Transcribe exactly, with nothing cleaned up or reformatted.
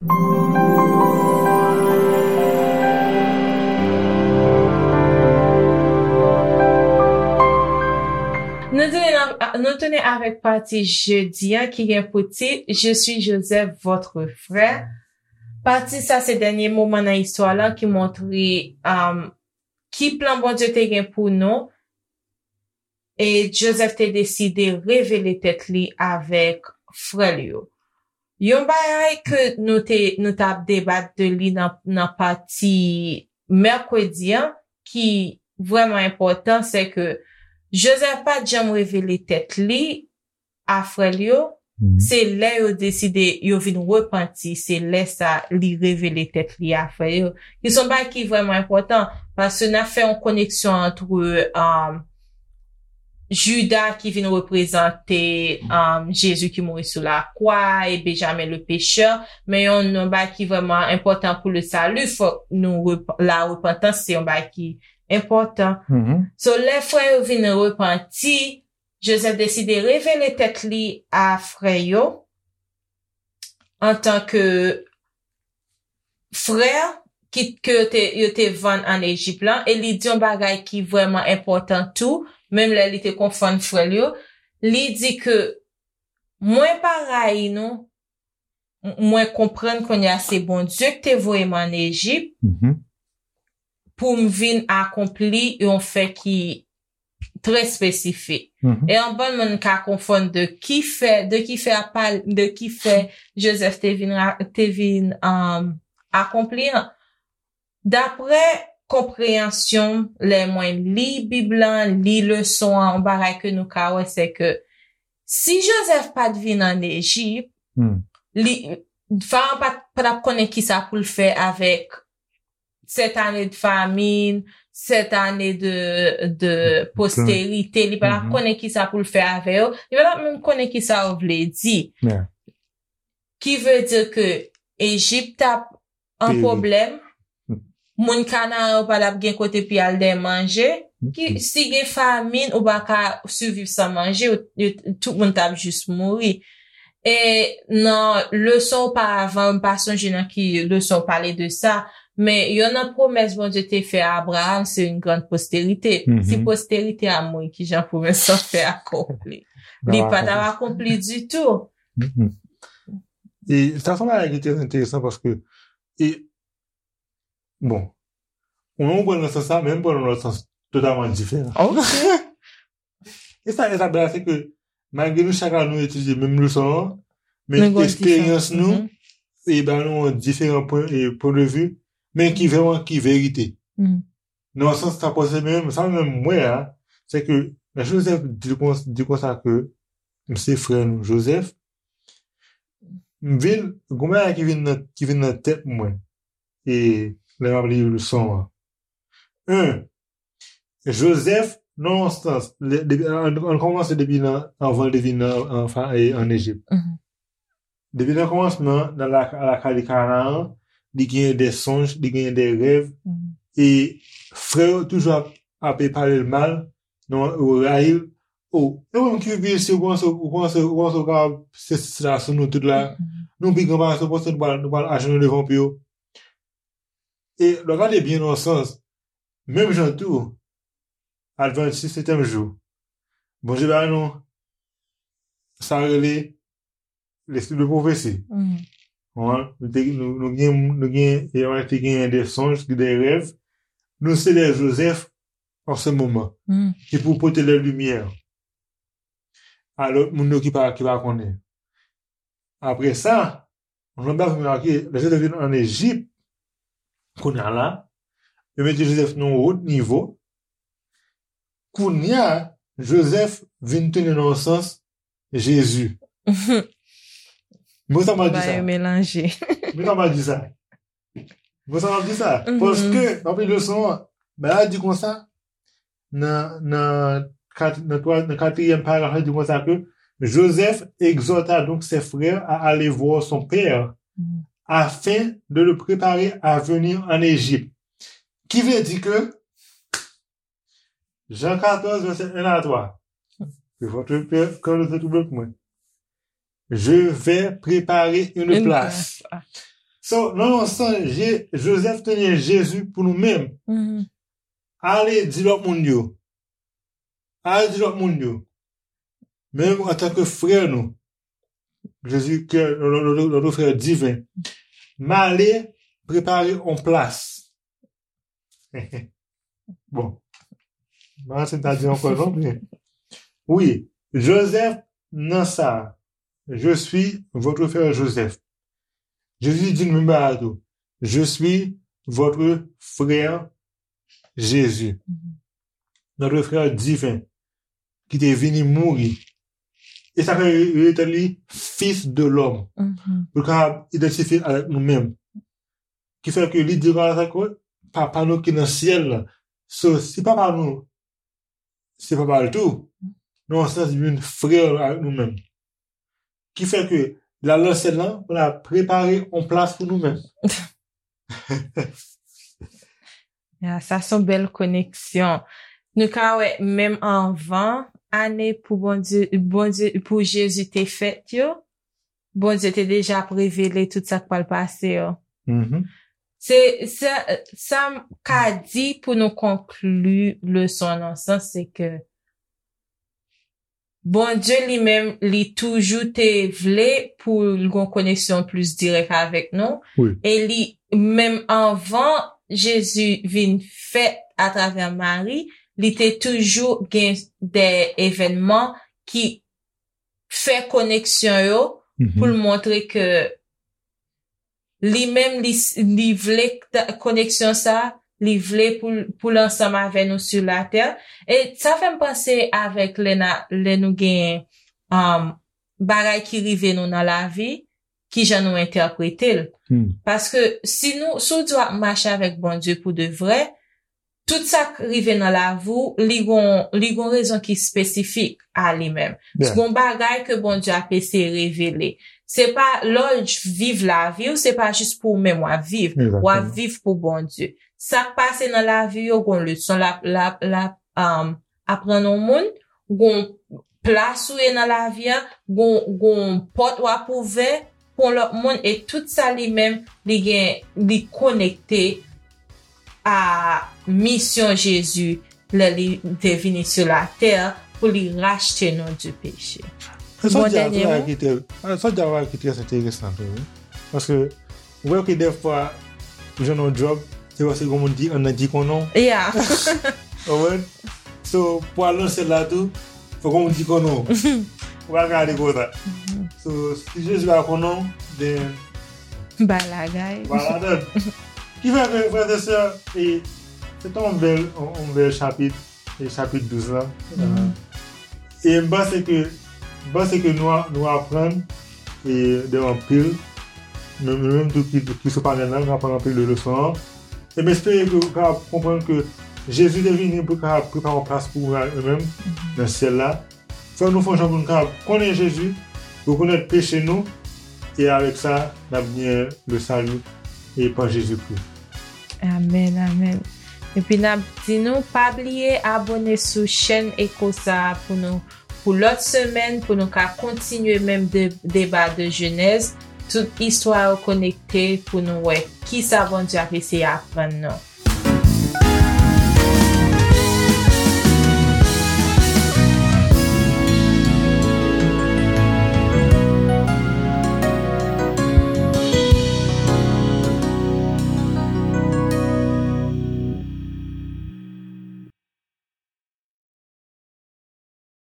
Nou tounen, nou tounen avèk pati jedi an ki gen pou tit Je suis Joseph, votre frère. Pati sa se dènye moman nan istwa la ki montre um, ki plan Bondye te gen pou nou. E Joseph te deside revele tèt li avèk frè l yo. Yon bagay ke nou te nou t ap debat de li nan, nan pati mèkredi an, ki vrèman enpòtan, se ke Joseph pa t janm revele tèt li a frè l yo. Se lè yo deside, yo vin repanti, se lè sa li revele tèt li a frè yo. Ki se yon bagay ki vrèman enpòtan, paske n ap fè yon koneksyon ant um, Jida ki vin reprezante um, Jezi ki mouri sou lakwa e Benjamin le pechè, men yon, yon bagay ki vrèman enpòtan pou le sali, fòk nou rep, la repantans se yon bagay ki enpòtan. So lè frè yo vin repanti, Joseph deside revele tèt li a frè yo antanke frè ki, ke yo te, yo te vann ann Ejip lan, e li di yon bagay ki vrèman enpòtan tou, menm lè li te konfwonn frè l yo, li di ke mwen pa rayi nou, mwen konprann kounye a se Bondye ki te voye m ann Ejip pou m vin akonpli yon fè ki trè espesifik. E anpil moun ka konfonn de ki fè, de ki fè a pale, de ki fè Joseph te vin, te vin um, akonpli an. Daprè konpreyansyon m, lè mwen li Bib lan, li leson an, yon bagay ke nou ka wè, se ke si Joseph pa t vin ann Ejip, li, Farawon pa t ap konnen kisa pou l fè avèk sèt ane de famin, sèt ane de, de posterite, li pa t ap konnen kisa pou l fè avè yo, li pa t ap menm konnen kisa yo vle di. Ki vle di ke Ejip t ap an pwoblèm, moun Kanaran yo pa t ap gen kote pou y al dèyè manje, ki, si gen famin, ou pa ka siviv san manje, tout moun t ap jis mouri. E nan leson oparavan, m pa sonje nan ki leson w pale de sa, men youn nan pwomès Bondye te fè a Abraram, se yon grann posterite. Si posterite a mouri, kijan pwomès lan fè akonpli? Li pa t ap akonpli ditou. E sa se yon bagay ki trè enteresan paske, e, bon, ou konprann nan sans sa, men m pran nan lòt sans totalman diferan. E sa, e sa bèl la, se ke malgre nou chak la nou etidye menm leson an, men eksperyans nou e ba nou yon diferan pwen, e pwen de vi, men ki vrèman ki verite. Nan yon sans sa pase menm, sa menm mwen a, se ke lè Joseph di konsa ke m se frè nou Joseph, m vin, gon bagay ki vin nan, ki vin nan tèt mwen e lè m ap li leson an. En, Joseph, nan yon sans, ann kòmanse depi nan, anvan l te vin nan, ann Ejip. Depi nan kòmansman, nan lakay Kanaran, li genyen de sonj, li genyen de rèv, e frè yo toujou ap, ap pale l mal, non, yo rayi l. O, e ou menm ki vin si ou panse, ou panse, ou panse ou kapab se, se la sou nou tout la, nou pi gran pase, ou panse nou pral, nou pral ajenou devan pye w. E lè w gade byen nan yon sans, menm jan tou, Advantis setyèm jou, Bondye ba nou sa rele lespri de pwofesi. Nou gen, nou gen, nou gen, e, nou te genyen de sonj, de rèv. Nou se de Joseph an se moman ki pou pote lè limyè a lòt moun yo ki pa, ki pa konnen. Apre sa, yon lòt bagay pou remake, lè Joseph vin ann Ejip, kounye a la, yo mete Joseph nan yon wot nivo. Kounye a, Joseph vin tounen nan yon sans Jezi. Mwen sa m ap di sa. Mwen sa m ap di sa. Mwen sa m ap di sa. Paske, nan leson an, Bib la di konsa, nan, nan, nan katriyèm paragraf la, di konsa ke Joseph exhorta donc ses frères à aller voir son père afin de le préparer à venir en Égypte. Ki vle di ke Jan katòz, vèsè en a twa. Que votre cœur ne se trouble point. Je vais préparer une place. So, nan yon sans, Je- Joseph te gen Jezi pou nou menm. Mhm. Ale di lòt moun yo. Ale di lòt moun yo. Menm antanke frè nou, Jezi, ke notre frè diven, m ale prepare yon plas. Bon. M pa se ta di ankò non, men. Wi, Joseph nan sa. Je suis votre frère Joseph. Jezi di nou menm bagay tou. Je suis votre frère Jésus. Mhm. Notre frère divin, ki te vini mouri. E sa fè yo rele li Fils de l'homme. Mhm. Pou l kapab idantifye avèk nou menm. Ki fè ke li di konsa ke papa nou ki nan syèl la. So, si papa nou, se papa l tou, nan yon sans, li vin frè avèk nou menm. Ki fè ke l al nan syèl la, pou l al prepare yon plas pou nou menm. Ya, sa se yon bèl koneksyon. Nou ka wè, menm anvan ane pou Bondye, Bondye, pou Jezi te fèt yo, Bondye te deja ap revele tout sa k pral pase yo. Mhm. Se, se, sa m ka di pou nou konkli leson an nan sans, se ke Bondye li menm, li toujou te vle pou l gen yon koneksyon plis dirèk avèk nou. Wi. E li, menm anvan Jezi vin fèt atravè Mari, li te toujou gen de evènman ki fè koneksyon yo Mhm. pou l montre ke li menm, li, li vle t- koneksyon sa, li vle pou, l- pou l ansanm avè nou sou latè. E sa fè m panse avèk lè, na, lè nou gen um, bagay ki rive nou nan lavi, ki jan nou entèprete l. Hmm. Paske si nou, si w di w ap mache avèk Bondye pou de vrè, tout sa k rive nan lavi w, li gon, li gon rezon ki espesifik a li menm. Yeah. Gon bagay ke Bondye ap eseye revele. Se pa lè w viv lavi w, se pa jis pou ou menm w ap viv. Exactement. W ap viv pou Bondye. Sa k pase nan lavi yo, gon leson l ap, l ap, l ap um, aprann yon moun, gon plas ou ye nan lavi a, gon, gon pòt w ap ouvè pou yon lòt moun, e tout sa li menm, li gen, li konekte a misyon Jezi lè li te vini sou latè pou li rachte nou di peche. Sa w Bon di a, dènye sa mo. Ki te, sa w di a ki trè enteresan tou, wi. Paske ou wè ke dèfwa ou jwenn yon djòb, se paske gon moun ki anndan ki konnen w. Yeah. Ou konprann? So, pou al nan syèl la tou, fò gon moun ki konnen w. Ou pa ka ale konsa. So, si Jezi pa konnen w, then Bay lagay. Voilà, donk. Ki fè ke, frè e sè, e, se te yon bèl, yon, yon bèl chapit, e chapit douz la. Mhm. E m panse ke, m panse ke nou, a- nou aprann e de anpil. Nou, nou menm tou ki, ki sou panèl la, nou aprann anpil de leson an. E m espere ke ou kapab konprann ke Jezi te vini pou l kapab prepare yon plas pou ou menm nan syèl la. Fè nou fè yon jan pou nou kapab konnen Jezi, rekonèt peche nou, e avèk sa, n ap gen le salut e pa Jezikri. Amèn, amèn. Epi n ap di nou, pa bliye abòne sou chèn Eko sa a pou nou, pou lòt semèn, pou nou ka kontinye menm de, deba de Jenèz, tout istwa yo konekte pou nou wè kisa Bondye ap eseye aprann nou.